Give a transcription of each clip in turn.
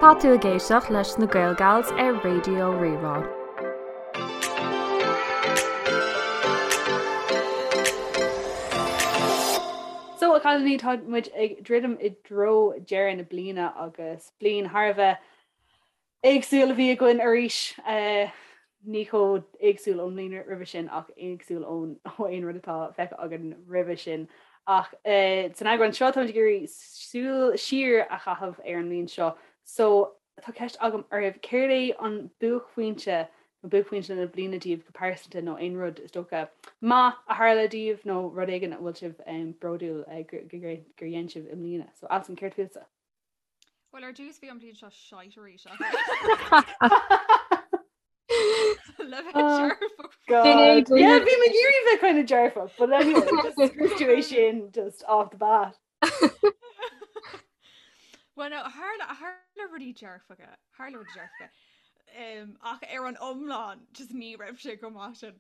Tá tú ag éisteacht leis na Gaelgals ar Raidió Rí-Rá. So, a chailíní, tá muid ag druidim i dtreo deireadh na bliana agus bliain thar a bheith éagsúil a bhí againn arís. Ní chomh éagsúil ón mbliain roimhe sin ach éagsúil ón ó aon rud atá feicthe againn roimhe sin. Ach san eagrán seo táimid ag iarraidh súil siar a chaitheamh ar an mbliain seo. So tá ceist agam oraibh, céard é an buaicphointe nó buaicphointe na bliana daoibh go pearsanta nó aon rud is dócha maith a tharla daoibh nó rud éigin a bhfuil sibh bródúil gur dhein sibh i mbliana? So Alison, céard fútsa? Well ar dtús bhí an bhliain seo shite arís Le bheith dearfach. God. Yeah, bhí mé ag iarraidh bheith kind of dearfach, but anyway, just scrios tú é sin just off the bat. Well no, tharla tharla rudaí dearfacha, tharla rudaí dearfacha. Um, ach ar an iomlán just ní raibh sé go maith sin.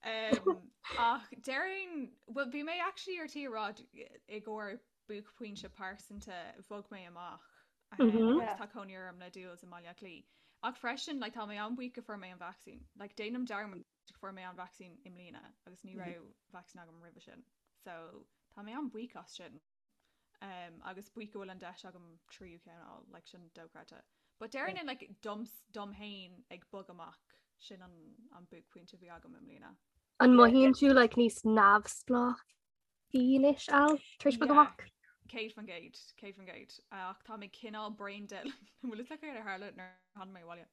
Um, ach déarfainn, well bhí mé actually ar tí a rá i gcomhair buaicphointe pearsanta bhog mé amach agus tá cónaí orm le Jules i mBaile Átha Cliath. Ach freisin like, tá mé an-bhuíoch go fuair mé an vacsaín. Like, déanaim dearmad go fuair mé an vacsaín i mbliana agus ní raibh vacsaín agam roimhe sin. So tá mé an-bhuíoch as sin. Um, agus buíoch go bhfuil an deis agam tríú ceann a fháil, like, sin dochreidte. But déarfainn like, dom, dom féin ag bogadh amach sin an, an buaicphointe a bhí agam i mbliana. An mothaíonn tú like, níos neamhspleách anois Al tar éis bogadh amach? 100%, 100%. Ach tá mé cineál brain dead. An bhfuil fhios agat céard a tharla nuair a tháinig mé abhaile?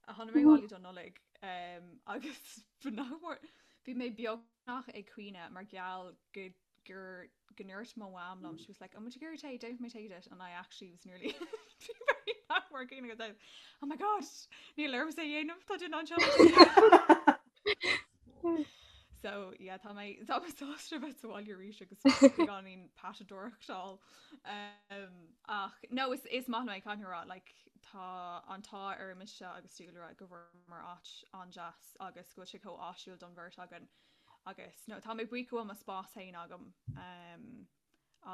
Tháinig mé abhaile don Nollaig agus nach mór bhí mé beagnach ag caoineadh mar gheall go gur go ndúirt mo mham liom, she was like, an bhfuil tú ag iarraidh tae, déanfaidh mé tae duit and I actually was nearly nach mór ag caoineadh agus oh my god, níl ormsa é a dhéanamh, tá duine anseo le tae. So yeah, tá mé tá mé sásta bheith sa bhaile arís agus beagáinín patadóireachtáil. Um, ach no is, is maith liom é caithfidh mé a rá like, tá an t-ádh ar mise agus Dúlra go bhfuaireamar áit an-deas agus go bhfuil sé chomh áisiúil don bheirt againn agus no, tá mé buíoch go bhfuil mo spás féin agam um,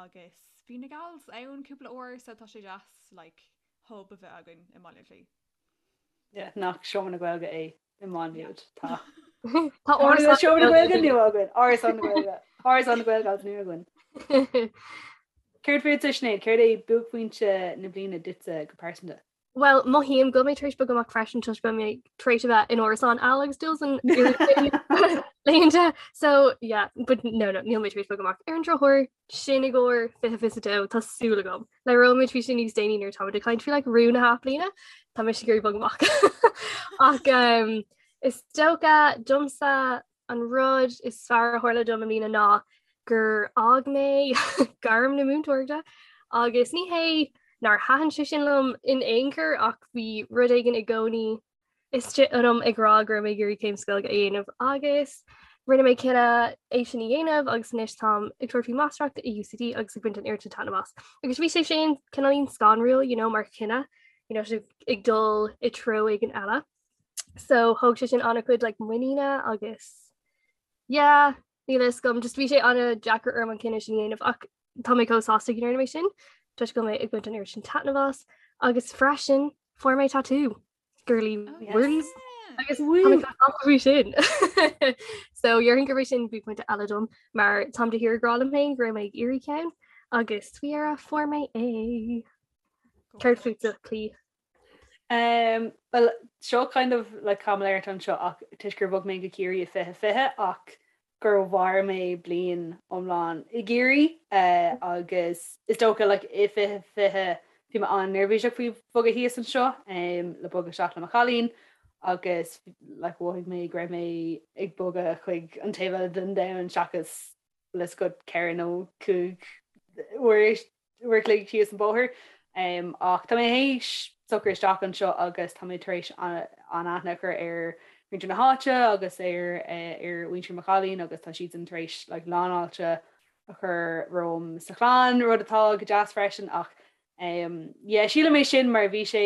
agus bhí na gals ann cúpla uair so tá sé deas like, hub a bheith againn i mBaile Átha Cliath. Yeah, nach Seomra na Gaeilge é i Má Nuad. Tá. Tá Árasán Seomra na Gaeilge nua againn. Árasán na Gaeilge. Árasán na Gaeilge agus nua againn. Céard fútsa Sinéad, céard é buaicphointe na bliana duitse go pearsanta? Well, mothaím go bhfuil mé tar éis bogadh amach freisin toisc go bhfuil mé tar éis a bheith in árasán Al agus Jules an laethanta. So yeah, but no, no, níl mé tar éis bogadh amach. Ar an drochuair, sin i gcomhair 2022, tá súil agam. Labhróimid faoi sin níos déanaí nuair atáimid ag caint faoi like, rún na hathbhliana, tá mise ag iarraidh bogadh amach. Ach um, is dócha domsa an rud is fearr a tharla dom i mbliana ná gur fhág mé gairm na múinteoireachta agus ní hé nár thaitin sé sin liom in aon chor ach bhí rud éigin i gcónaí istigh ionam ag rá go raibh mé ag iarraidh céim sa Ghaeilge a dhéanamh agus rinne mé cinneadh é sin a dhéanamh agus anois táim ag tabhairt faoi máistreacht i UCD agus ag baint an oiread sin taitneamh as. Agus bhí sé sin cineáilín scanrúil you know, mar chinneadh you know, sibh ag dul i treo éigin eile. So thóg sé sin an-chuid like, muiníne agus yeah, níl a fhios agam, just bhí sé an-deacair orm an cinneadh sin a dhéanamh ach tá mé chomh sásta go ndearna mé sin toisc go bhfuil mé ag baint an oiread sin taitneamh as agus freisin fuair mé tatú. Girly oh, words agus faoi sin. So déarfainn gurb é sin buaicphointe eile dom mar táim de shíor ag rá liom féin go raibh mé ag iarraidh ceann agus faoi dheireadh fuair mé é. Céard fútsa Clí? Um, well, seo kind of like caimiléireacht anseo ach toisc gur bhog mé go Ciarraí i 2020 ach gur mhair mé bliain iomlán i gCiarraí agus is dócha like i 2020 bhí mé an-neirbhíseach faoi bhogadh thíos anseo le bogadh isteach le mo chailín agus like mhothaigh mé go raibh mé ag bogadh chuig an taobh eile den domhan seachas le scut 4 nó 5 uair uair a chloig síos an bóthar. Ach tá mé théis socrú isteach anseo agus tá mé tar éis an-aithne a chur ar mhuintir na háite agus ar ar mhuintir mo chailín agus tá siadsan tar éis like lánfháilte a chur romham sa chlann, rud atá go deas freisin ach yeah sílim é sin mar bhí sé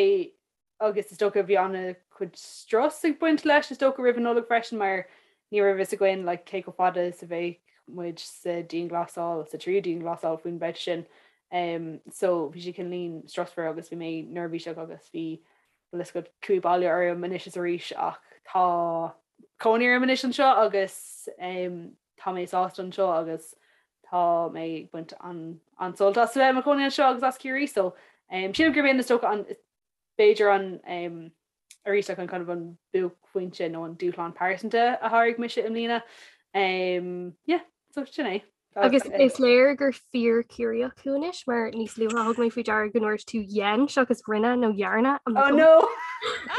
agus is dócha bhí an-chuid strus ag baint leis is dócha roimh an Nollaig freisin mar ní raibh fhios againn like cé chomh fada is a bheadh muid sa dianghlasáil, sa tríú dianghlasáil faoin mbabhta sin. Um, so bhí sé cineáilín strusmhar agus bhí mé neirbhíseach agus bhí bhfuil a fhios agat cumha baile orm anois is arís ach tá cónaí orm anois anseo agus um, tá mé sásta anseo agus tá mé ag baint an an-sult as a bheith i mo chónaí anseo agus as Ciarraí so um, sílim gurb in is dócha an b'fhéidir an um, arís like an kind of an buaicphointe nó an dúshlán pearsanta a sháraigh mise i mbliana. Um, yeah, so sin é. Agus is léir gur fíor Ciarraíoch thú anois mar níos luaithe thug mé faoi deara go ndúirt tú dhein seachas rinne nó dhearna. I'm like, Oh no!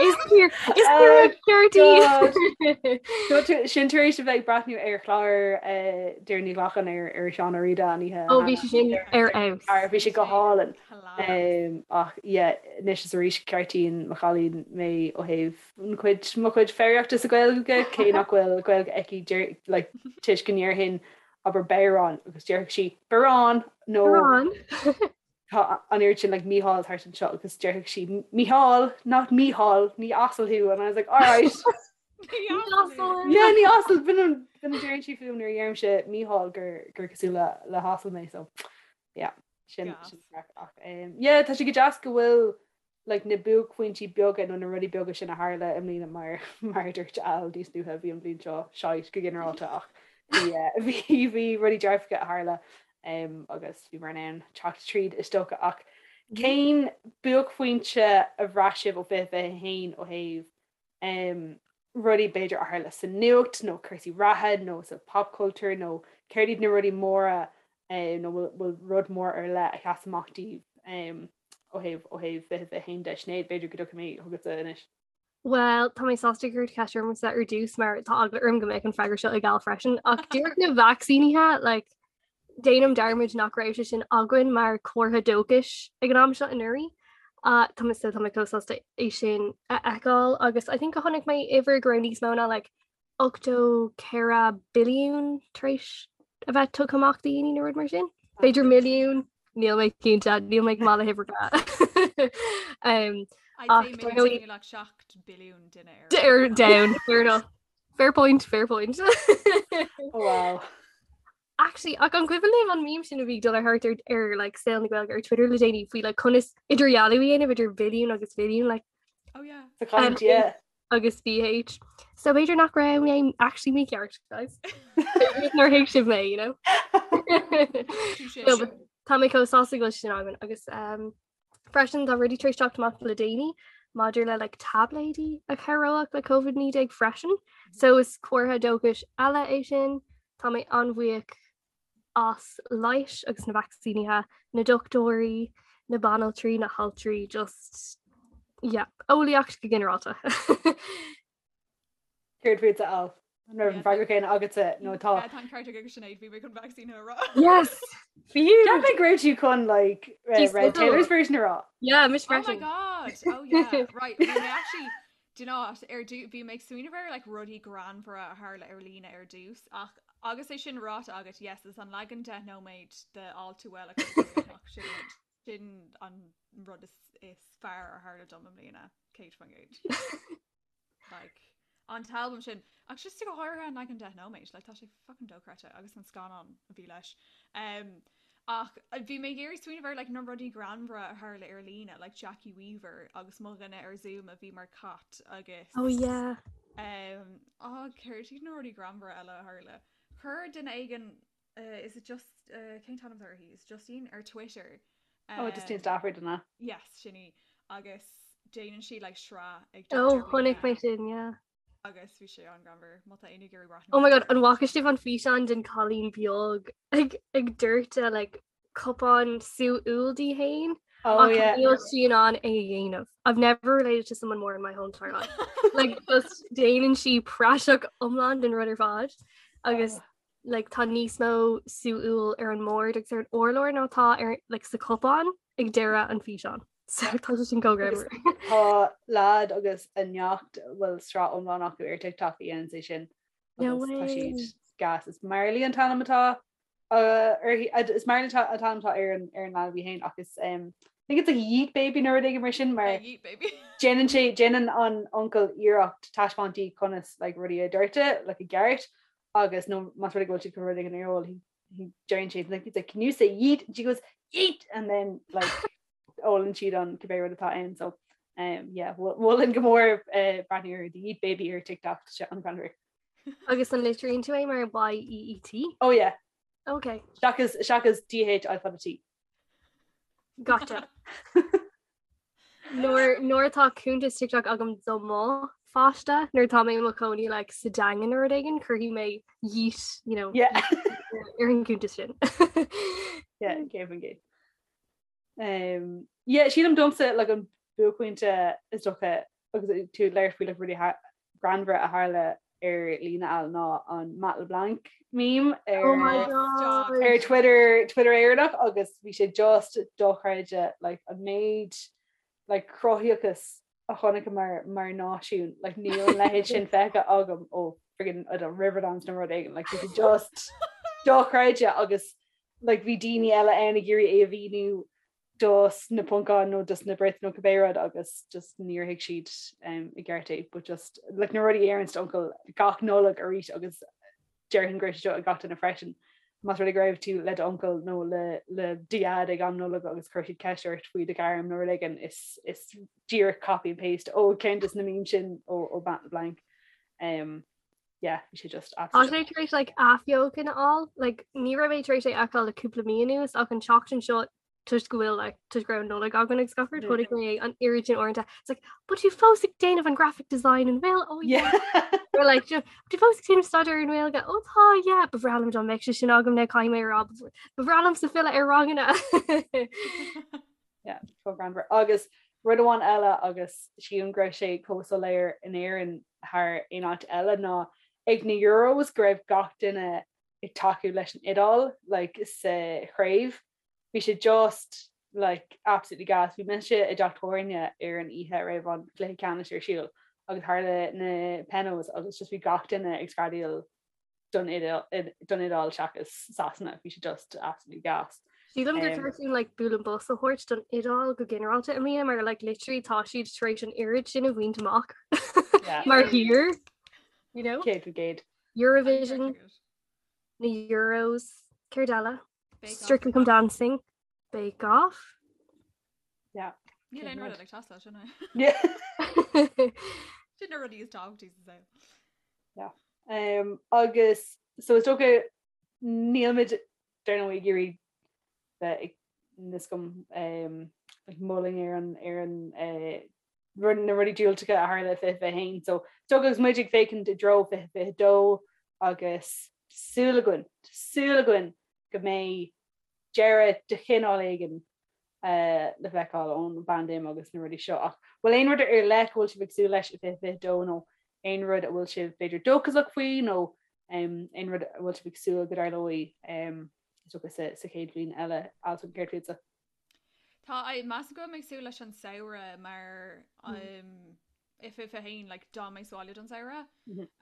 Is fíor is fíor ceart í! No, tú- sin tar éis a bheith ag breathnú ar chlár eh, Doireann Ní Ghlacáin ar ar Seán Ó Riada an oíche. Ó bhí sé sin ar fheabhas. Ar bhí sé go hálainn. Ach yeah, anois is arís ceartaíonn mo chailín mé ó thaobh an chuid, mo chuid foghraíochta sa Ghaeilge, cé nach bhfuil Gaeilge aici deir, like, toisc go ndéarfainn abair bodhrán agus déarfadh sí barán nó Barán. tá an oiread sin like Mícheál thart anseo agus déarfadh sí Mícheál, not Mícheál, ní asal thú and I was like alright. Ní asal. Yeah, ní asal b'in an b'in a deireann sí fúm nuair a dheirimse Mícheál gur gur cosúil le le hasal mé so yeah. Sin sin craic ach um, yeah, tá sé go deas go bhfuil like, na buaicphointí beaga nó na rudaí beaga sin a tharla i mbliana mar mar a dúirt Al níos luaithe bhí an bhliain seo shite go ginearálta ach bhí eh, bhí bhí rudaí dearfacha a tharla um, agus bhí mar in ann teacht tríd is dócha ach cén buaicphointe a bhraith sibh ó 2021 ó thaobh um, rudaí b'fhéidir a tharla sa nuacht nó cúrsaí reatha nó sa pop culture nó céard iad na rudaí móra um, nó bhfuil rud mór ar leith a sheas amach daoibh um, ó thaobh ó thaobh 2021 de Sinéad b'fhéidir go dtiocfaidh mé chugatsa anois. Well, tá mé sásta gur cuireadh ceist ormsa ar dtús mar tá eagla orm go mbeidh an freagra seo ag Al freisin ach díreach na vacsaínithe like, Déanaim dearmad nach raibh sé sin againn mar comhartha dóchais ag an am seo anuraidh. Tá mé so tá mé chomh sásta é sin a fheiceáil agus I think go chonaic mé uimhir go raibh níos mó ná like 84 billiún tar éis a bheith tugtha amach do dhaoine nó rud mar sin. B'fhéidir milliún, níl mé cinnte, níl mé go maith le huimhreacha. Um, I'd say maybe like 7 billiún duine ar ar down, fair enough. Fair point, fair point. Oh, wow. Actually, ach an cuimhin libh an meme sin a bhí ag dul ar thart ar, ar like, saol na Gaeilge ar Twitter le déanaí faoi like, conas idirdhealú a dhéanamh idir billiún agus mhilliún like, Oh yeah. Sa chaint, yeah. agus BH. So b'fhéidir nach raibh mé actually mícheart, guys. Nár thuig sibh mé, you know? Touché. No, but Tá mé chomh sásta go bhfuil sin againn agus um, Freisin tá rudaí tar éis teacht amach le déanaí maidir le like, táibléidí a chabhródh le COVID-19 freisin. So is comhartha dóchais eile é sin. Tá mé an-bhuíoch as leighis agus na vacsaínithe, na dochtúirí, na banaltraí, na haltraí, just yeah, eolaíocht go ginearálta. Céard fútsa Al? An raibh an freagra céanna agatsa nó tá? Tá an ceart ag Sinéad bhí mé chun vacsaín a rá. Yes! Fiú! Cheap mé go raibh tú chun like uh, Red Taylor's version a rá. Yeah, mise Oh my freisin. god! Oh yeah, right. Bhí mé actually do you know what, ar dtú bhí mé ag smaoineamh ar like rudaí greannmhara a tharla ar líne ar dtús ach agus é sin ráite agat yes is an leagan 10 nóiméad de All Too Well a chuir amach sin sin an rud is is fearr a tharla dom i mbliana 100%. Like, an t-albam sin, ach just go háirithe an leagan 10 nóiméad, like, tá sé fucking dochreidte agus an scannán a bhí leis. Um, ach uh, bhí mé ag iarraidh smaoineamh ar like, na rudaí greannmhara a tharla ar líne, like Jackie Weaver agus mo dhuine ar Zoom a bhí mar cat agus Oh yeah. um, oh, céard iad na rudaí greannmhara eile a tharla. Chuir duine éigin uh, is it just uh, cén t-ainm atá uirthi? Is Justine ar Twitter. Oh, Justine Stafford an ea. Yes, sin í. Agus déanann sí like sraith ag Oh, chonaic mé sin, yeah. Agus bhí sé an-ghreannmhar má tá éinne ag iarraidh breathnú Oh my god, an bhfaca sibh an físeán den cailín beag ag ag doirteadh like cupán sú úll di féin? Oh Ach yeah. níl sí in ann é a dhéanamh. I've never related to someone more in my whole entire life. Like just déanann sí praiseach iomlán den rud ar fad. Agus Oh. like tá níos mó sú úll ar an mbord agus ar an urlár ná tá ar like sa cupán ag deireadh an físeán. So tá sé sin chomh Agus greannmhar. tá leaid agus a neacht bhfuil sraith iomlán acu ar TikTok a dhéanann é sin No agus tá way. siad gas. Is Marley an t-ainm atá uh, uirthi- uh, is Marley an t-ainm atá ar an ar an leanbh í féin ach is um, I think it's like Yeet Baby nó rud éigin mar sin mar Yeah, Yeet baby. déanann sé déanann an uncail iarracht taispeáint di conas like, rudaí a doirteadh like, i gceart agus nó más rud é go bhfuil siad chun rud éigin a ól, he deireann sé like, he's like, can you say yeet? And she goes, Yeet and then like ólann siad an cibé rud atá ann so um, yeah, mholfainn go mór uh, breathnú ar the Yeet Baby ar TikTok tá sé an-ghreannmhar. Agus an litríonn tú é mar Y-E-E-T? Oh yeah. Okay. Seachas seachas D-H I fada T. Gotcha. Nuair nuair atá cuntas TikTok agam do mo pháiste, nuair atá mé i mo chónaí like, sa Daingean nó rud éigin, cuirfidh mé yeet, you know, Yeah. ar an gcuntas sin. Yeah, 100%. Um, yeah, sílim domsa like, an buaicphointe is dócha agus tú ag labhairt faoi like, rudaí greannmhara a tharla ar líne al ná an Matt LeBlanc meme ar, Oh my God. ar Twitter Twitter Éireannach agus bhí sé just dochreidte like, an méid like, cruthaíochas a chonaiceamar mar náisiún like, níl an leithéid sin feicthe agam ó friggin, I don't know, Riverdance nó rud éigin like, bhí sé just dochreidte agus like, bhí daoine eile ann ag iarraidh é a mhíniú dos na Poncáin nó dos na Brits nó cibé rud agus just níor thuig siad um, i gceart é but just like, na rudaí a deireanns d'uncail gach Nollaig arís agus déarfainn go raibh sé seo ag gach duine freisin. Más rud é go raibh tú le d'uncail nó le le do dhaid ag am Nollag agus chuir siad ceist ort faoi do ghairm nó rud éigin is is díreach copy and paste ó ceann des na memes sin ó ó Matt LeBlanc. Um, yeah, bhí sé just Tá sé tar éis like, athbheochan a fháil, like, ní raibh mé tar éis é a fheiceáil le cúpla mí anuas ach an tseachtain seo toisc go bhfuil like, toisc go raibh Nollaig againn agus gach rud chonaic mé an oiread sin uaireanta. It's like, but tú fós ag déanamh an graphic design an bhfuil? Oh yeah. Or like, you know, tú fós ag déanamh staidéar ar an nGaeilge? Oh tá, yeah. Ba bhreá liom dá mbeadh sé sin agam now caithfidh mé a rá ba bhreá liomsa filleadh ar ranganna. Yeah, chomh greannmhar. Agus rud amháin eile agus sílim go raibh sé chomh soiléir in Éirinn thar aon áit eile ná ag na Euros go raibh gach duine ag tacú leis an Iodáil like, sa chraobh. Bhí sé just like absolutely gas. Bhí mise i dteach tábhairne ar an oíche a raibh an cluiche ceannais ar siúl agus tharla na penos agus just bhí gach duine ag screadaíl don Iodáil seachas Sasana. Bhí sé just absolutely gas. Sílim gur ceart dúinn like bualadh bos a thabhairt don Iodáil go ginearálta i mbliana mar like literally tá siad tar éis an oiread sin a bhaint amach mar thír you know? 100%. Eurovision, na Euros, céard eile? Strictly Come Dancing, Bake Off. Yeah. Níl aon rud ag teastáil sin é. Yeah. Sin na rudaí is tábhachtaí sa saol. Yeah. Um, agus so is dócha nílmid dar ndóigh ag iarraidh bheith ag níos gom um, ag moladh ar an ar an uh, rud na rudaí diúltacha a tharla i 2021. So is dócha agus muid ag féachaint i dtreo 2022 agus súil againn, súil againn go mbeidh deireadh de chineál éigin le feiceáil ón bpaindéim agus na rudaí seo. Ach bhfuil aon rud ar leith go bhfuil sibh ag súil leis i 2022 nó aon rud a bhfuil sibh b'fhéidir dóchasach faoi nó aon rud a bhfuil sibh ag súil go dtarlóidh is dócha sa chéad bhliain eile Alison céard fútsa? Tá measaim go bhfuil mé ag súil leis an samhradh mar i 2021 like d'fhan mé sa bhaile don samhradh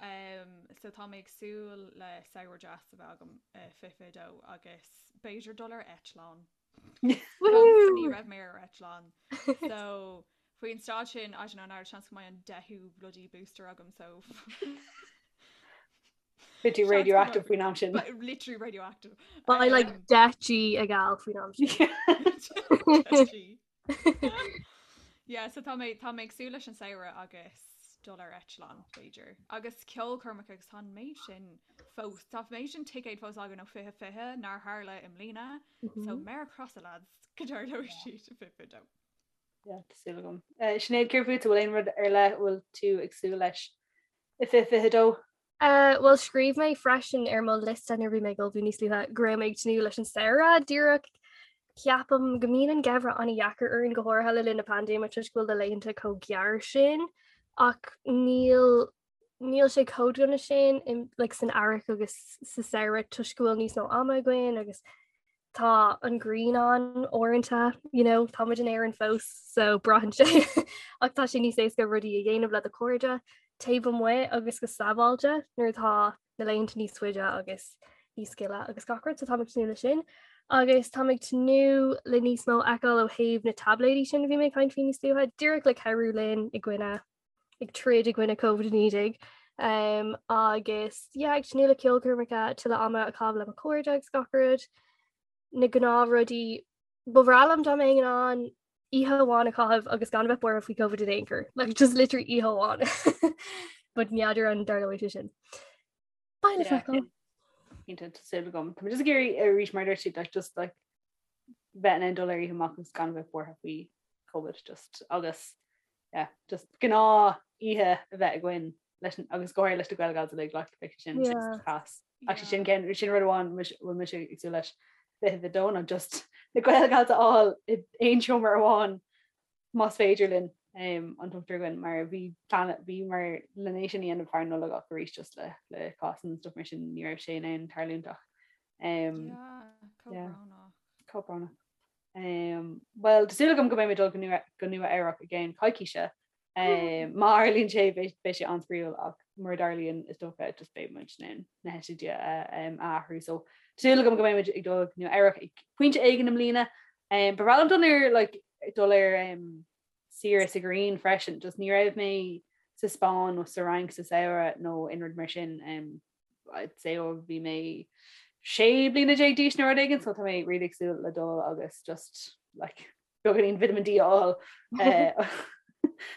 um, so tá mé ag súil le samhradh deas a bheith agam i 2022 agus b'fhéidir dul ar eitleán. Ní raibh mé ar eitleán. So faoin staid sin I don't know an seans go mbeidh an deichiú bloody booster agam so Beidh tú radioactive faoin am sin. Literally radioactive. Beidh like 10 G ag Al faoin am sin. Yeah, so tá mé tá mé ag súil leis an samhradh agus dul ar eitleán b'fhéidir. Agus ceolchoirmeacha agus tá an méid sin fós tá an méid sin ticéad fós againn ó 2020 nár tharla i mbliana. So méar crosa lads go dtarlóidh siad i 2022. Yeah, tá súil agam. Uh, Sinéad céard fút bhfuil aon rud ar leith bhfuil tú ag súil leis i 2022? Uh, well scríobh mé freisin ar mo liosta nuair a bhí mé ag ullmhú níos luaithe go raibh mé ag tnúth leis an samhradh díreach ceapaim go mbíonn an geimhreadh an-dheacair orainn go háirithe le linn na paindéime toisc go bhfuil na laethanta chomh gearr sin ach níl níl sé chomh dona sin in, like, san earrach agus sa samhradh toisc go bhfuil níos mó ama againn agus tá an ghrian ann uaireanta, you know, tá muid in Éirinn fós so braitheann sé ach tá sé níos éasca rudaí a dhéanamh le do chairde taobh amuigh agus go sábháilte nuair atá na laethanta níos faide agus níos gile agus gach rud so táim ag tnúth le sin. Agus táim ag tnúth le níos mó a fheiceáil ó thaobh na taibléidí sin a bhí mé ag caint faoi níos luaithe, díreach le cabhrú linn i gcoinne ag troid i gcoinne Covid-19 um, agus yeah, ag tnúth le ceolchoirmeacha tuilleadh ama a chaitheamh le mo chairde agus gach rud na gnáthrudaí. Ba bhreá liom dá mbeinn in ann oíche amháin a chaitheamh agus gan a bheith buartha faoi Covid in aon chor. Like just literally oíche amháin. But n'fheadar an dtarlóidh sé sin. Beidh le feiceáil. Cinnte tá súil agam. Tá mé just ag iarraidh arís mar dúirt siad like just like bheith in ann dul ar oíche amach agus gan a bheith buartha faoi Covid just agus yeah, just gnáth oíche a bheith againn leis an agus go háirithe leis na Gaelgals uilig like beidh sé sin Yeah. class. Actually sin cen sin rud amháin bhfuil mise ag súil leis 22 ná just na Gaelgals a fháil i aon seomra amháin más féidir linn um, an t-ochtar againn mar bhí plean bhí mar len é sin a dhéanamh thar Nollaig ach arís just le le cásanna and stuff mar sin ní raibh sé in ann tarlúint ach um, Yeah, chomh yeah. brónach. Chomh brónach. Um, well, tá súil agam go mbeidh mé dul go Nua go Nua Eabhrac i gceann coicíse. Um, má tharlaíonn sé beidh beidh sé an-spraíúil ach mura dtarlaíonn is dócha just beidh muid in ann na heitiltí a um, a athrú. So tá súil agam go mbeidh muid ag dul go Nua Eabhrac ag pointe éigin i mbliana. Um, ba bhreá liom dul ar like, dul ar um, saoire sa ghrian freisin, just ní raibh mé sa Spáinn nó sa Fhrainc sa samhradh nó aon rud mar sin. Um, I'd say ó bhí mé 16 bliana d'aois nó rud éigin, so tá mé really ag súil le dul agus just like beagáinín vitamin D a fháil eh,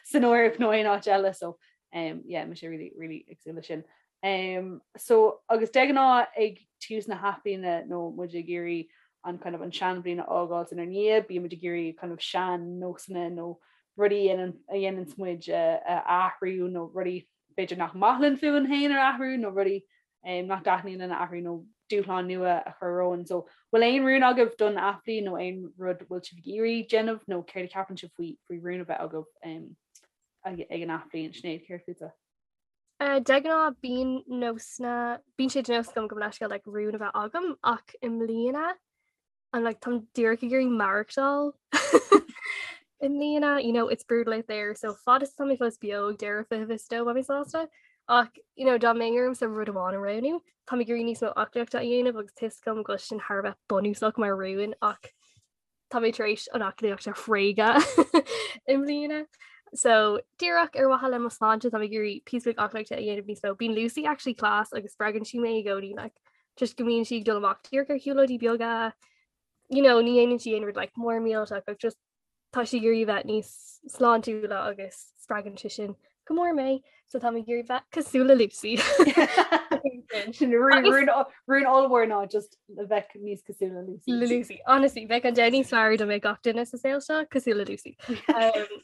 san Eoraip nó aon áit eile so um, yeah, mise really really ag súil le sin. Um, so agus de ghnáth ag tús na hathbhliana nó muid ag iarraidh an kind of an seanbhliain a fhágáil inár ndiaidh, bíonn muid ag iarraidh kind of sean nósanna nó rudaí a dhéananns muid a athrú nó rudaí b'fhéidir nach maith linn fúinn féin a athrú nó rudaí nach dtaitníonn linn a athrú nó dúshlán nua a chur romhainn. So bhfuil aon rún agaibh don athbhliain nó aon rud bhfuil sibh ag iarraidh déanamh nó céard a cheapann sibh faoi faoi rún a bheith agaibh ag an athbhliain? Sinéad, céard fútsa? De ghnáth bíonn nósanna, bíonn sé de nós agam gabh mo leithscéal like rún a bheith agam ach i mbliana I'm like táim díreach ag iarraidh maireachtáil i mbliana, you know, it's brutal out there, so fad is atá mé fós beo ag deireadh 2022 beidh mé sásta. Ach you know, dá mbeinn ormsa rud amháin a roghnú, táim ag iarraidh níos mó aclaíochta a dhéanamh agus tá a fhios agam go bhfuil sin thar a bheith bunúsach mar rún ach tá mé tar éis an aclaíocht a thréigean i mbliana. So díreach ar mhaithe le mo sláinte tá mé ag iarraidh píosa beag aclaíochta a dhéanamh níos mó. Bíonn Lucy actually class agus spreagann sí mé i gcónaí like, just go mbíonn sí ag dul amach díreach ar shiúlóidí beaga, you know, ní dhéanann sí aon rud like mór millteach ach just tá sí ag iarraidh bheith níos sláintiúla agus spreagann sé sin go mór mé, so tá mé ag iarraidh bheith cosúil le Lucy. Sin rún ollmhór ná just a bheith níos cosúil le Lucy. Le Lucy. Honestly, bheadh an domhan níos fearr dá mbeadh gach duine sa saol seo cosúil le Lucy. Um,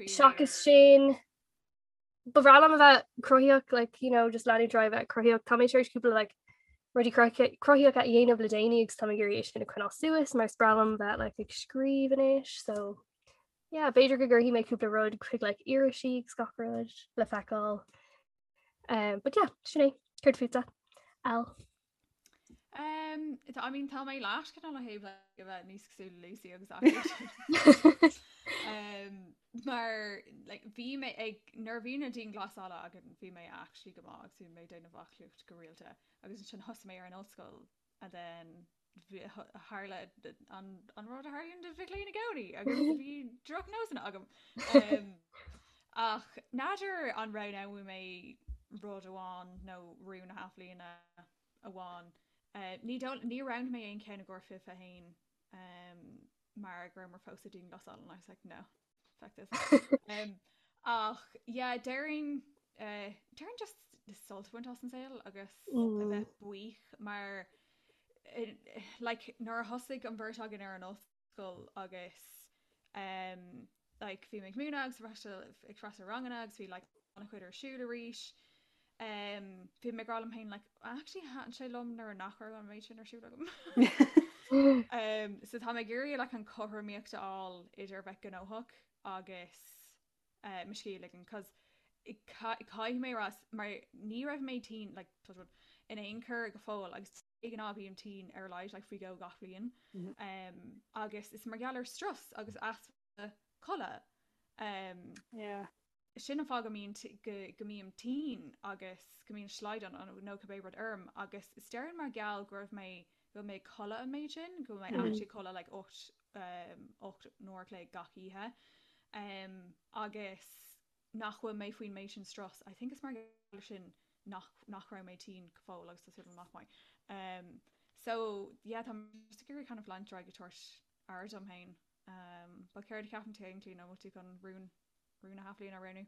seachas sin, ba bhreá liom a bheith cruthaíoch, like, you know, just leanúint ar aghaidh bheith cruthaíoch. Tá mé tar éis cúpla like, rudaí cruthaíocha a dhéanamh le déanaí agus tá mé ag iarraidh é sin a choinneáil suas mar is breá liom bheith like, ag scríobh anois, so yeah, b'fhéidir go gcuirfidh mé cúpla rud chuig like, irisí agus gach rud le feiceáil. Um, but yeah, sin é, céard fútsa? Al. Um, I mean tá mé leis cineál ó thaobh like, a bheith níos cosúil le Lucy agus aclaíocht. um, mar like, bhí mé ag nuair a bhí na dianghlasála againn bhí mé actually go maith agus bhí mé ag déanamh aclaíocht go rialta agus ansin thosaigh mé ar an ollscoil and then tharla an, an rud a tharlaíonn do mhic léinn i gcónaí agus bhí drochnósanna agam. Um, ach n'fheadar an roghnóidh mé rud amháin nó rún na hathbhliana amháin. Uh, ní ní roghnaigh mé aon cheann i gcomhair 21 um, mar go rabhamar fós sa dianghlasáil and I was like no. Fuck this. Um, ach yeah, déarfainn uh, déarfainn just sult a bhaint as an saol agus a mm. bheith buíoch mar eh, like, nuair a thosaigh an bheirt againn ar an ollscoil agus um, like, bhí mé ag múineadh agus freastal ag freastal ranganna agus bhí like, an-chuid ar siúl arís. Um, bhí mé ag rá liom féin like, actually thaitin sé liom nuair nach raibh an méid sin ar siúl agam. um, so tá mé ag iarraidh like, an chothromaíocht a fháil idir bheith gnóthach agus uh, mo scíth a ligean, cos caithfidh mé rá mar ní raibh mé tinn like, touch wood, in aon chor go fóill agus de ghnáth bím tinn ar a laghad like, faoi dhó gach bliain. Mm -hmm. um, agus is mar gheall ar strus agus easpa codladh. Um, yeah. Sin an fáth go mbíonn go go mbím tinn agus go mbíonn slaghdán nó cibé rud orm agus is déarfainn mar gheall go raibh mé go bhfuil mé ag codladh an méid sin, go bhfuil mé actually ag codladh like 8 8 n-uair a chloig gach oíche um, agus nach bhfuil mé faoin méid sin strus. I think is mar gheall ar sin nach nach raibh mé tinn go fóill agus tá súil agam nach mbeidh. Um, so yeah, tá mé just ag iarraidh kind of leanúint ar aghaidh ag tabhairt. aire dom féin. Um, but céard a cheapann tú féin Clíona, bhfuil tú chun rún rún na hathbhliana a roghnú?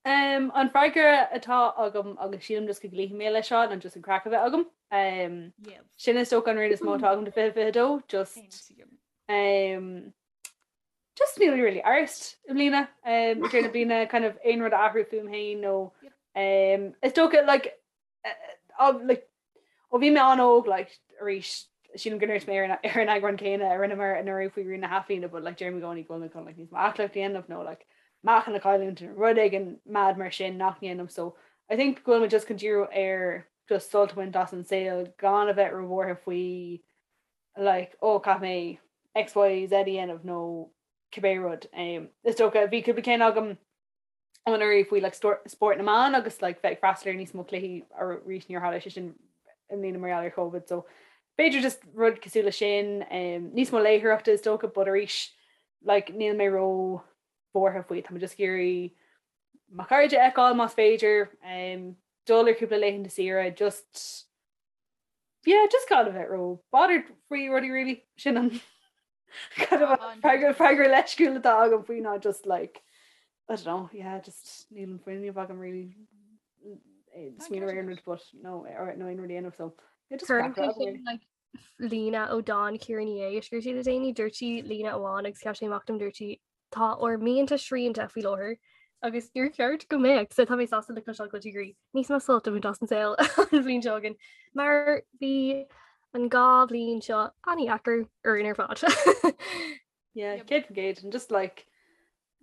Um, an freagra atá agam agus sílim just go gcloífidh mé leis seo ná just an craic a bheith agam. Um, Yes. sin is dócha an rún is mó atá agam do 2022, just Aontaím. um, just níl really arsed i mbliana um, ag deireadh na bliana kind of aon rud a athrú fúm féin nó Yep. um, is dócha like, uh, like, ó bhí mé an-óg like, arís sílim go ndúirt mé ar an ar an eagrán céanna a rinneamar anuraidh faoi rún na hathbhliana but like deirim i gcónaí go bhfuil mé chun like, níos mó aclaíocht a dhéanamh nó like, meáchan a chailliúint nó rud éigin mad mar sin nach ndéanaim so I think go bhfuil mé just chun díriú ar just sult a bhaint as an saol gan a bheith róbhuartha faoi like oh caithfidh mé X, Y, Z a dhéanamh nó cibé rud. Um, is dócha bhí cúpla ceann agam anuraidh faoi like, spórt na mban agus like, bheith ag freastal ar níos mó cluichí arís níor tharla sé sin i mbliana mar gheall ar Covid. So b'fhéidir just rud cosúil le sin, um, níos mó léitheoireachta is dócha, but arís like, níl mé ró bhuartha faoi. Tá mé just ag iarraidh mo chairde a fheiceáil más féidir, um, dul ar cúpla laethanta saoire, just yeah, just gan a bheith ró bothered faoi rudaí really sin an kind of An- freagra freagra leisciúil atá agam faoi ná just like I don't know, yeah, just níl an fuinneamh agam really eh, smaoineamh ar aon rud but no or no aon rud a dhéanamh so yeah, just Cuireann craic sé agam sin really. like líne ó dán Ciara Ní É a scríobh sí le déanaí, dúirt sí líne amháin agus sheas sé amach dom dúirt sí Tá ár mianta srianta faoi láthair agus níor cheart go mbeadh, so tá mé sásta le cloisteáil go bhfuil tú ag iarraidh níos mó sult a bhaint as an saol an bhliain seo chugainn, mar bhí an dá bhliain seo an-deacair orainn ar fad. Yeah, 100% and just like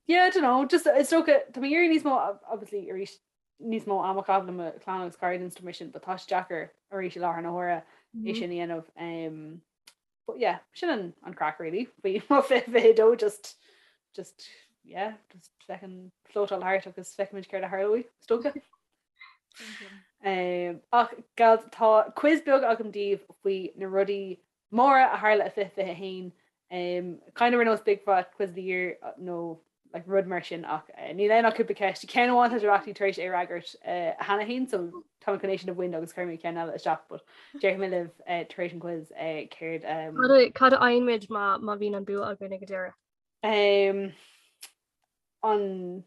yeah, I don't know, just is dócha tá mé ag iarraidh níos mó obviously arís níos mó ama a chaitheamh le mo chlann agus cairde and stuff mar sin, but tá sé deacair arís i láthair na huaire é sin a dhéanamh. Um, But yeah, sin an, an craic really. Faoi mo 2022 just just yeah, just feckin floatáil thart agus feicfimid céard a tharlóidh, is dócha. Um, ach gal tá quiz beag agam daoibh faoi na rudaí móra a tharla i 2021. Um, kind of ar nós Big Fat Quiz of the Year uh, nó like rud mar sin ach eh, níl ann ach cúpla ceist. Ceann amháin tá sibh actually tar éis é a fhreagairt eh, cheana féin, so tá mé chun é sin a bhaint agus cuirfidh mé ceann eile isteach, but déarfaidh mé libh eh, tar éis an quiz eh, céard um, Cad a- Cad a fhaigheann muid má má bhíonn an bua againn ag an deireadh? um, an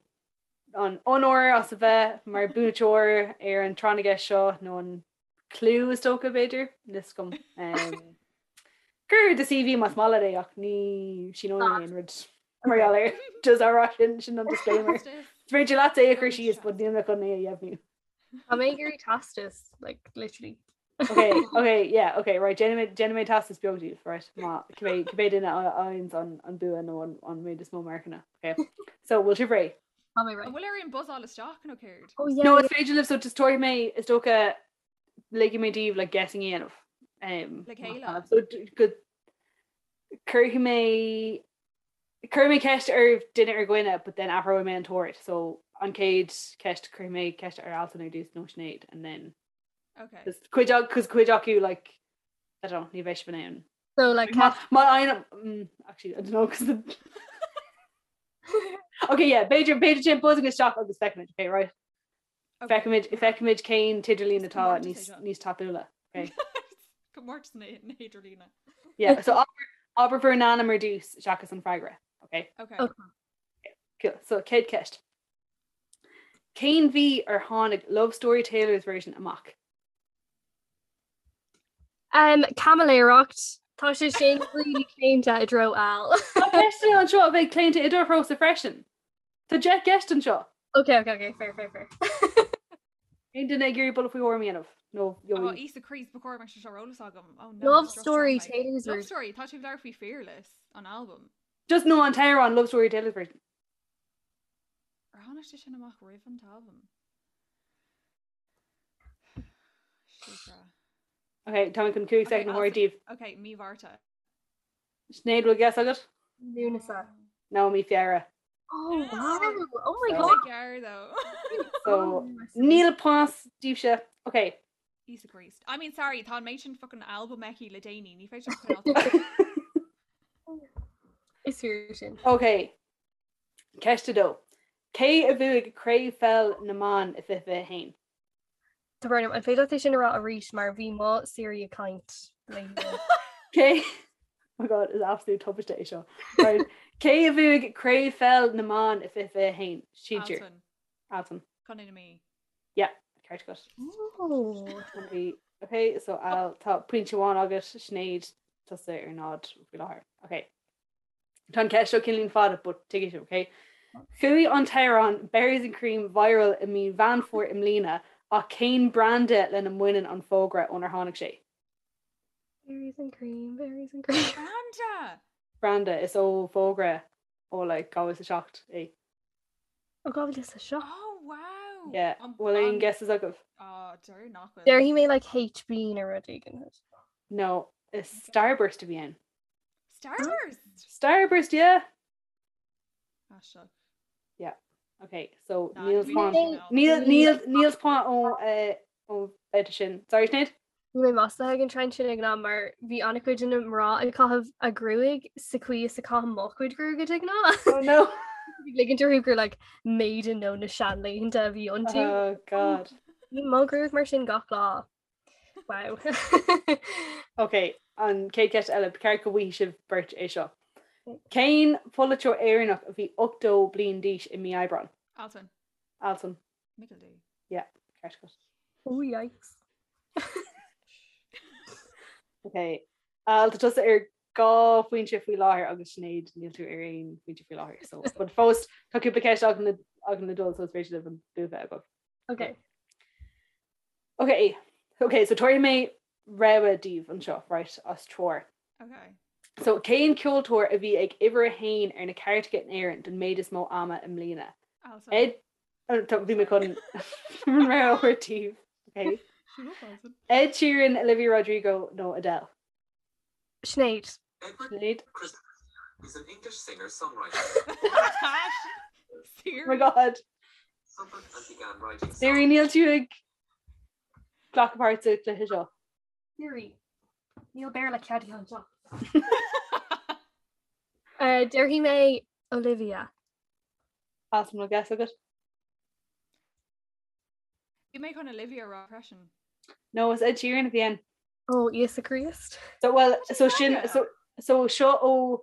an onóir as a bheith mar buaiteoir ar an tráth na gceist seo nó an clú is dócha b'fhéidir, níl 'fhios agam. Um, Cuir do CV más maith leat é ach ní síneoidh mé aon rud mar gheall air. Just á rá sin sin an disclaimer. Is féidir leat é a chur síos but níl mé chun é a dheimhniú. Tá mé ag iarraidh teastas, like, literally. Okay, okay, yeah, okay, right, déanfaidh mé déanfaidh mé teastas beag daoibh, right, má cibé cibé duine a fhaigheanns an an bua nó an an méid is mó marcanna, okay. So, bhfuil sibh réidh? Tá mé réidh. An bhfuil orainn buzzáil isteach nó céard? Oh yeah. No, is féidir libh so just tabharfaidh mé is dócha ligfidh mé daoibh like guessing a dhéanamh. Um, Le chéile. So go cuirfidh mé cuirfidh mé ceist ar duine ar dhuine, but then athróidh mé an t-ord. So an chéad ceist cuirfidh mé ceist ar Alison ar dtús nó Sinéad and then Okay. Cos cuid cos cuid acu like I don't know, ní bheidh sibh in ann. So like Má má fhaigheann mm, actually I don't know cos the Okay, yeah, b'fhéidir b'fhéidir sin buzzing isteach agus feicfimid, okay, right? Okay. Feicfimid feicfimid cén t-idirlíon Is atá comórtas é níos seo. níos tapúla. Okay. Comórtas na na hidirlíne. Yeah, so abair abair bhur n-ainm ar dtús seachas an freagra. Okay. Okay. Okay. Cool. So chéad ceist. Cén mhí ar tháinig Love Story Taylor's Version amach? Um, caimiléireacht. Tá sé sin really claonta i dtreo Al. Tá ceisteanna anseo a bheidh claonta i do threosa freisin. Tá 10 gceist anseo. Ok, ok, ok, fair, fair, fair. Aon duine ag iarraidh buille faoi thuairim a dhéanamh? Nó Oh, gheobhaidh. Íosa Críost, ba chóir go mbeadh sé seo ar eolas agam. Oh no, Love just Story droch mé. Taylor's Love Version. Story, tá tú ag labhairt faoi Fearless, an albam. Just nó an t-amhrán Love Story Taylor's Version. Ar tháinig sé sin amach roimh an t-albam? Síofra. Ok, tá mé chun 5 soicind a thabhairt daoibh. Ok, mí Mhárta. Sinéad, bhfuil guess agat? Lúnasa. No, mí Feabhra. Oh wow! Oh my So- god! Gearr though. So, níl pointe daoibhse. Ok. Íosa Críost. I mean, sorry, tá an méid sin fucking albam aici le déanaí, ní féidir coinneáil. Is fíor sin. Ok. Ceist 2. Cé a bhuaigh Craobh Pheil na mBan i 2021? Tá brón orm, an féidir leat é sin a rá arís mar bhí mo Siri ag caint léi. Cé. My God, is absolute tubaiste é seo. Right. Cé a bhuaigh Craobh Pheil na mBan i 2021? Sinsir. Altan. Altan. Contae na Mí. Yeah, ceart agat. Oh. Bhí- Ok, so Al, tá pointe amháin agat, Sinéad, tusa ar náid faoi láthair. Ok. Tá an ceist seo cineáilín fada, but tuigfidh sibh, ok? Chuaigh an t-amhrán Berries and Cream viral i mí Mheán Fómhair i mbliana, ach cén branda lena mbaineann an fógra ónar tháinig sé? Berries and cream, berries and cream. Branda! Branda, is ó fógra ó like 2007 é. Ó 2007? Oh wow! Yeah, bhfuil aon guesses agaibh? Oh, deir nach bhfuil. Déarfaidh mé like HB nó rud éigin. No, is Starburst a bhí ann. Starburst? Starburst, yeah! Aisteach. Yeah. Okay, so Nah, níl ní point bhí níl níl níl point ó eh, ó bheirt sin. Sorry Sinéad? Bhí mé maslaithe ag an trend sin ag an am mar bhí an-chuid de na mná ag caitheamh a gruaig sa chaoi is a caithim mo chuid gruaige de ghnáth. Oh no. Bhí ligint orthu gur like maiden nó na seanlaethanta a bhí iontu. Oh god. Bhí mo ghruaig mar sin gach lá. Wow. Ok, an chéad cheist eile, ba cheart go bhfaighidh sibh beirt é seo. Cén polaiteoir Éireannach a bhí 80 bliain d'aois i mí Aibreáin? Altan. Altan. Michael D. Yeah, ceart agat. Oh yikes. Ok, Al, tá tusa ar dhá phointe faoi láthair agus Sinéad níl tú ar aon phointe faoi láthair. So, but fós tá cúpla ceist againn le againn le dul so is féidir libh an bua bheith agaibh. Ok. Ok, ok, so tabharfaidh mé rogha daoibh anseo, right, as treoir. Ok. So cén ceoltóir a bhí ag uimhir a haon ar na cairteacha in Éirinn don méid is mó ama i mbliana? Altan. Ed, oh, tá- bhí mé chun an rogha a thabhairt daoibh. Ok. Shut up, Altan. Ed Sheeran, Olivia Rodrigo nó Adele? Sinéad. Edward Sinéad. Christopher is an English singer-songwriter. Oh my God. Siri níl tú ag glacadh páirt sa chluiche seo. Siri. Níl Béarla ceadaithe anseo. Déarfaidh mé Olivia. Altan, an bhfuil guess agat? Bhí mé chun Olivia a rá freisin. No, is Ed Sheeran a bhí ann. Ó, Íosa Críost. So, well, so sin, so, so seo ó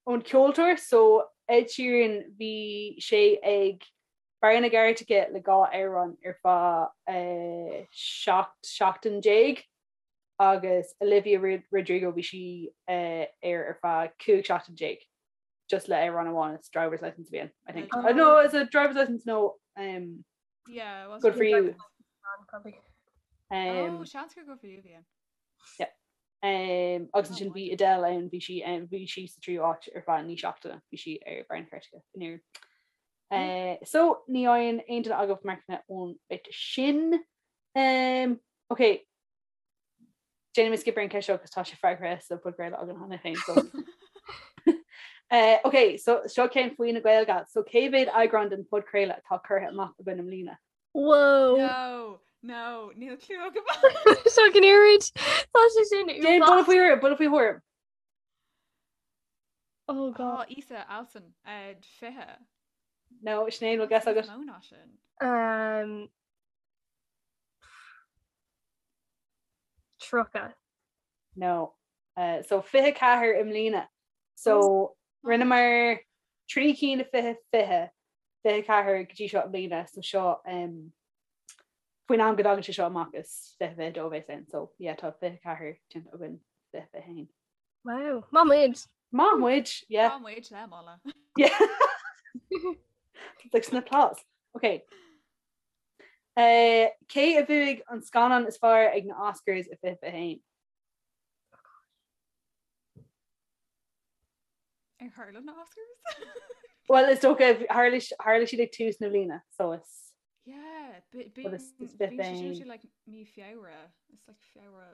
ón ceoltóir, so Ed Sheeran bhí sé ag barr na gcairteacha le dhá amhrán ar feadh eh, 17 seachtain agus Olivia Rodrigo bhí sí eh, ar ar feadh 15 seachtain just le amhrán amháin it's driver's license a bhí ann, I think. Oh. Uh, no, is it driver's license no um, Yeah, it was Good for you. Probably. Um, Oh, seans gur Good for You a bhí ann. Um, agus Oh, ansin bhí wow. Adele ann bhí sí um, bhí sí sa tríú áit ar feadh naoi seachtaine bhí sí ar barr na cairteacha in Éirinn. Uh, so ní fhaigheann aon duine agaibh marcanna ón bit sin. Um, ok, déanfaidh mé skip ar an ceist seo agus tá sé freagraithe sa podchraoladh againn cheana féin. So. uh, ok, so seo ceann faoi na Gaeilge. So cé mhéad eagrán den podchraoladh atá curtha amach againn i mbliana? Whoa! No, no, níl clue agam. Seo go n-iarraid. Tá sé sin Déan buille faoi thuairim, buille faoi thuairim. Oh God. Oh, Íosa, Altan, uh, 20. No, Sinéad, bhfuil guess agat? Mó ná sin. Um, 30. No. Uh, so 24 i mbliana. So rinneamar trí cinn i 20 20, 24 go dtí seo i mbliana, so seo um, faoin am go dtagann sé seo amach is 20 22 a bheas ann, so yeah, tá 24 déanta againn 20 21. Wow, maith muid! Maith muid, yeah. Maith muid le moladh. Yeah. It's like an applause. Okay. Uh, cé a bhuaigh an scannán is fearr ag na Oscars i 2021? Ar tharla na Oscars? Well, is dócha tharla tharla siad ag tús na bliana, so is Yeah, But is- is bíonn bit sé sin féin. ar like mí Feabhra. It's like Feabhra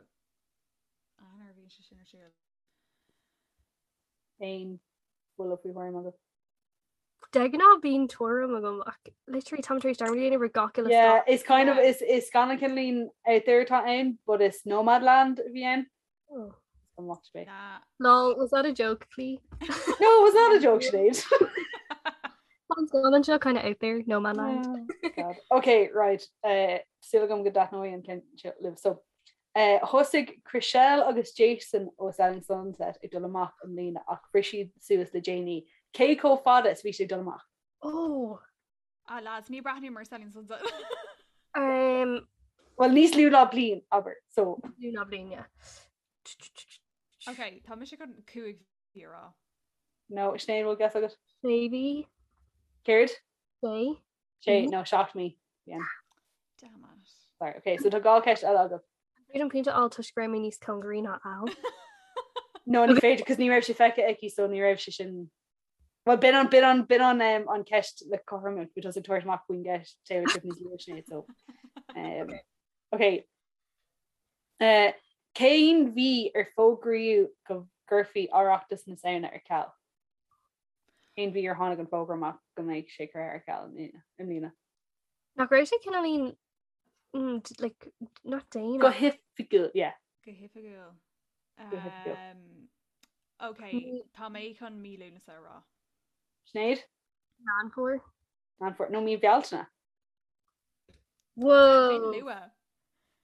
Eanáir bíonn sé sin ar siúl. aon bhuille faoi thuairim agat. De ghnáth bíonn tuairim agam ach literally táim tar éis dearmad a dhéanamh ar gach uile Yeah, scannán. is kind of Yeah. is is scannán cineáilín out there atá ann, but is Nomadland a bhí ann. Oh. An watch me. Nah. Lol, was that a joke, Clí? No, it was not a joke, Sinéad. An scannán seo kind of out there, Nomadland. Oh, God. Okay, right. Uh, Súil agam go dtaitneoidh an ceann seo libh. So, Thosaigh Chrishell agus Jason ó Selling Sunset ag dul amach i mbliana ach bhris siad suas le déanaí. Cé chomh fada is a bhí siad ag dul amach? Oh! Ah lads, ní breathnaím ar Selling Sunset. Um, Well níos lú ná bliain, abair, so. Lú ná bliain, yeah. Ok, tá mise chun 5 mhí a rá. No, Sinéad, bhfuil guess agat? Sé mhí. Céard? Sé. Sé, no, 7 mí. Yeah. Damn it. Sorry, ok, so tá dhá ceist eile agat. An féidir liom pointe a fháil toisc go raibh mé níos cóngaraí ná Al. No, ní féidir, cos ní raibh sé feicthe aici, so ní raibh sé sin Well b'in an b'in an b'in an um, an ceist le cothrom bhí tusa ag tabhairt amach faoin gceist Taylor Swift níos luaithe Sinéad so um, ok uh, Cén mhí ar fógraíodh go gcuirfí Oireachtas na Samhna ar ceal? Cén mhí ar tháinig an fógra amach go mbeidh sé curtha ar ceal i mbliana? Nach raibh sé cineáilín mm, like, not déanach. Go hoifigiúil, yeah. Go hoifigiúil. Go hoifigiúil. Um, Ok, tá mé chun mí Lúnasa a rá. Sinéad? Meán Fómhair. Meán Fómhair. No mí Bealtaine. Whoa! Luath.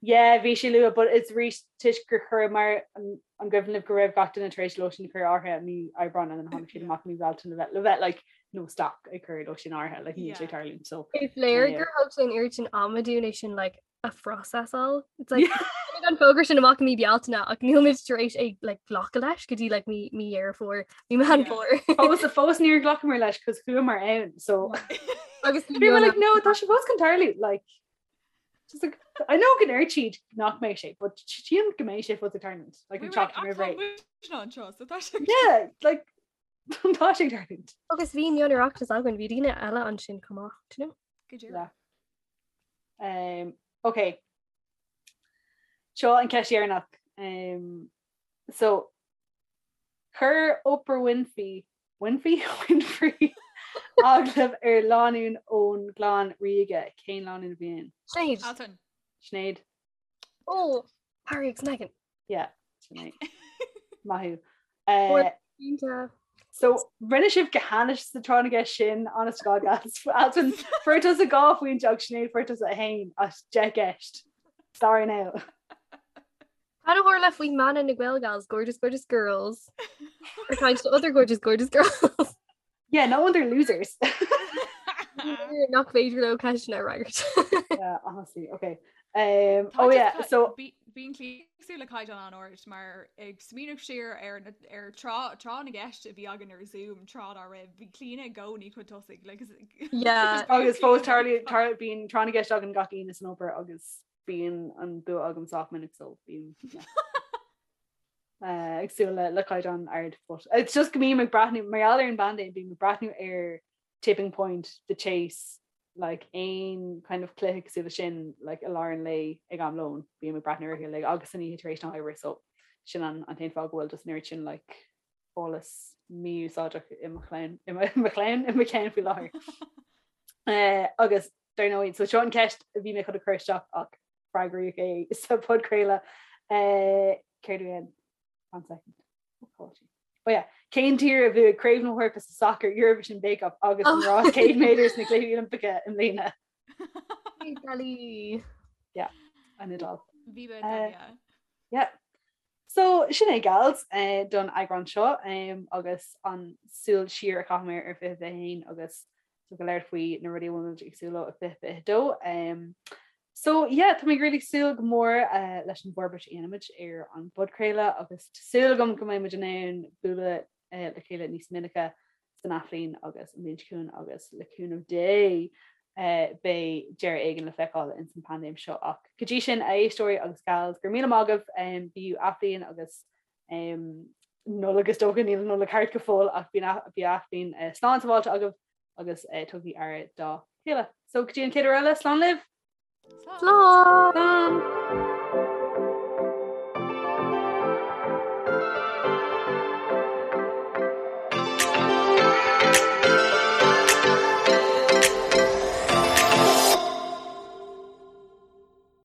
Yeah, bhí sé luath, but it's arís toisc gur chuir mar an an gcuimhin libh go raibh gach duine tar éis lóistín a chur in áirithe mí Aibreáin and then tháinig siad amach mí Bealtaine le bheith le bheith like no stop ag cur lóistín in áirithe like níl sé Yeah. tarlúint so Is léir Yeah. gur thóg sé an oiread sin ama dúinn é sin like a phrosesáil. It's like tháinig an fógra sin amach i mí Bealtaine ach níl muid tar éis é like glacadh leis go dtí like mí mí Dheireadh Fómhair, mí Meán Yeah. Fómhair. Fós fós níor ghlacamar leis cos chuamar ann so Agus bhí mé like no tá sé fós chun tarlú like just like I know go ndeir siad nach mbeidh sé but sílim go mbeidh sé fós ag tarlúint like an tseachtain roimh ré. anseo so tá sé Yeah like tá sé ag tarlúint. Agus bhí mion-Oireachtas againn, bhí daoine eile ansin chomh maith, do you know? Go díreach. Yeah. Um, ok. Seo an ceist dheireanach. Um, so chuir Oprah Winfrey Winfrey Winfrey agallamh ar lánúin ón gclann ríoga cén lánúin a bhí ann? Sinéad. Altan. Sinéad. Oh, Harry agus Meghan. Yeah, Sinéad. Maith thú. Uh, Iontach. So rinne sibh go hainnis sa tráth na gceist sin honest to God guys. Altan fuair tusa dhá phointe agus Sinéad fuair tusa a haon as deich gceist. Sorry now. Cad a tharla faoi mana na Gael Gals, gorgeous gorgeous girls. Or kind to other gorgeous gorgeous girls. Yeah, no wonder losers. Nach féidir leo ceisteanna a fhreagairt. Yeah, honestly, okay. Um, oh yeah, so Bíonn cosúil le caighdeán an-ard mar ag smaoineamh siar ar ar tráth tráth na gceist a bhí againn ar Zoom tráth dá raibh bhí Clíona i gcónaí chun tosaigh like, Yeah. agus fós tarlaíonn tar bíonn tráth na gceist againn gach Aoine san obair agus bíonn an bua agam sách minic so bíonn yeah. uh, ag súil le le caighdeán ard but it's just go mbím ag breathnú mar gheall ar an bpaindéim bím ag breathnú ar Tipping Point, The Chase, like aon kind of cluiche cosúil le sin like i lár an lae ag am lóin bím ag breathnú orthu like agus san oíche tar éis na hoibre so sin an an t-aon fáth go bhfuil just an oiread sin like eolas mí-úsáideach i mo chlann i mo i mo chlann i mo cheann faoi láthair. Uh, agus dar ndóigh so seo an ceist a bhí mé chun a chur isteach ach freagraíodh é sa podchraoladh uh, céard a bhí ann? One second. Oh yeah. Cén tír a bhuaigh Craobh na hEorpa sa sacar Eurovision Bake Off agus an rás 100 méadar sna Cluichí Oilimpeacha i mbliana? Italy. Yeah, an Iodáil. Bhí uh, yeah. Yeah. So sin é gals eh, don eagrán seo um, agus an súil siar a chaitheamar ar 2021 agus go léir faoi na rudaí a bhfuil muid ag súil leo i 2022. Um, so yeah, tá mé really ag súil go mór uh, leis an bhforbairt a dhéanfaimid ar an bpodchraoladh agus tá súil agam go mbeidh muid in ann bualadh uh, le chéile níos minice san athbhliain agus an bhliain seo chugainn agus le cúnamh Dé uh, beidh deireadh éigin le feiceáil ins an paindéim seo ach go dtí sin a éisteoirí agus gals go raibh míle maith agaibh um, bíodh athbhliain agus um, Nollaig is dócha níl an Nollaig thart go fóill ach bíodh athbhliain uh, slán sábháilte agaibh agus uh, tugaigí aire dá chéile. So go dtí an chéad uair eile slán libh! Slán! Slán!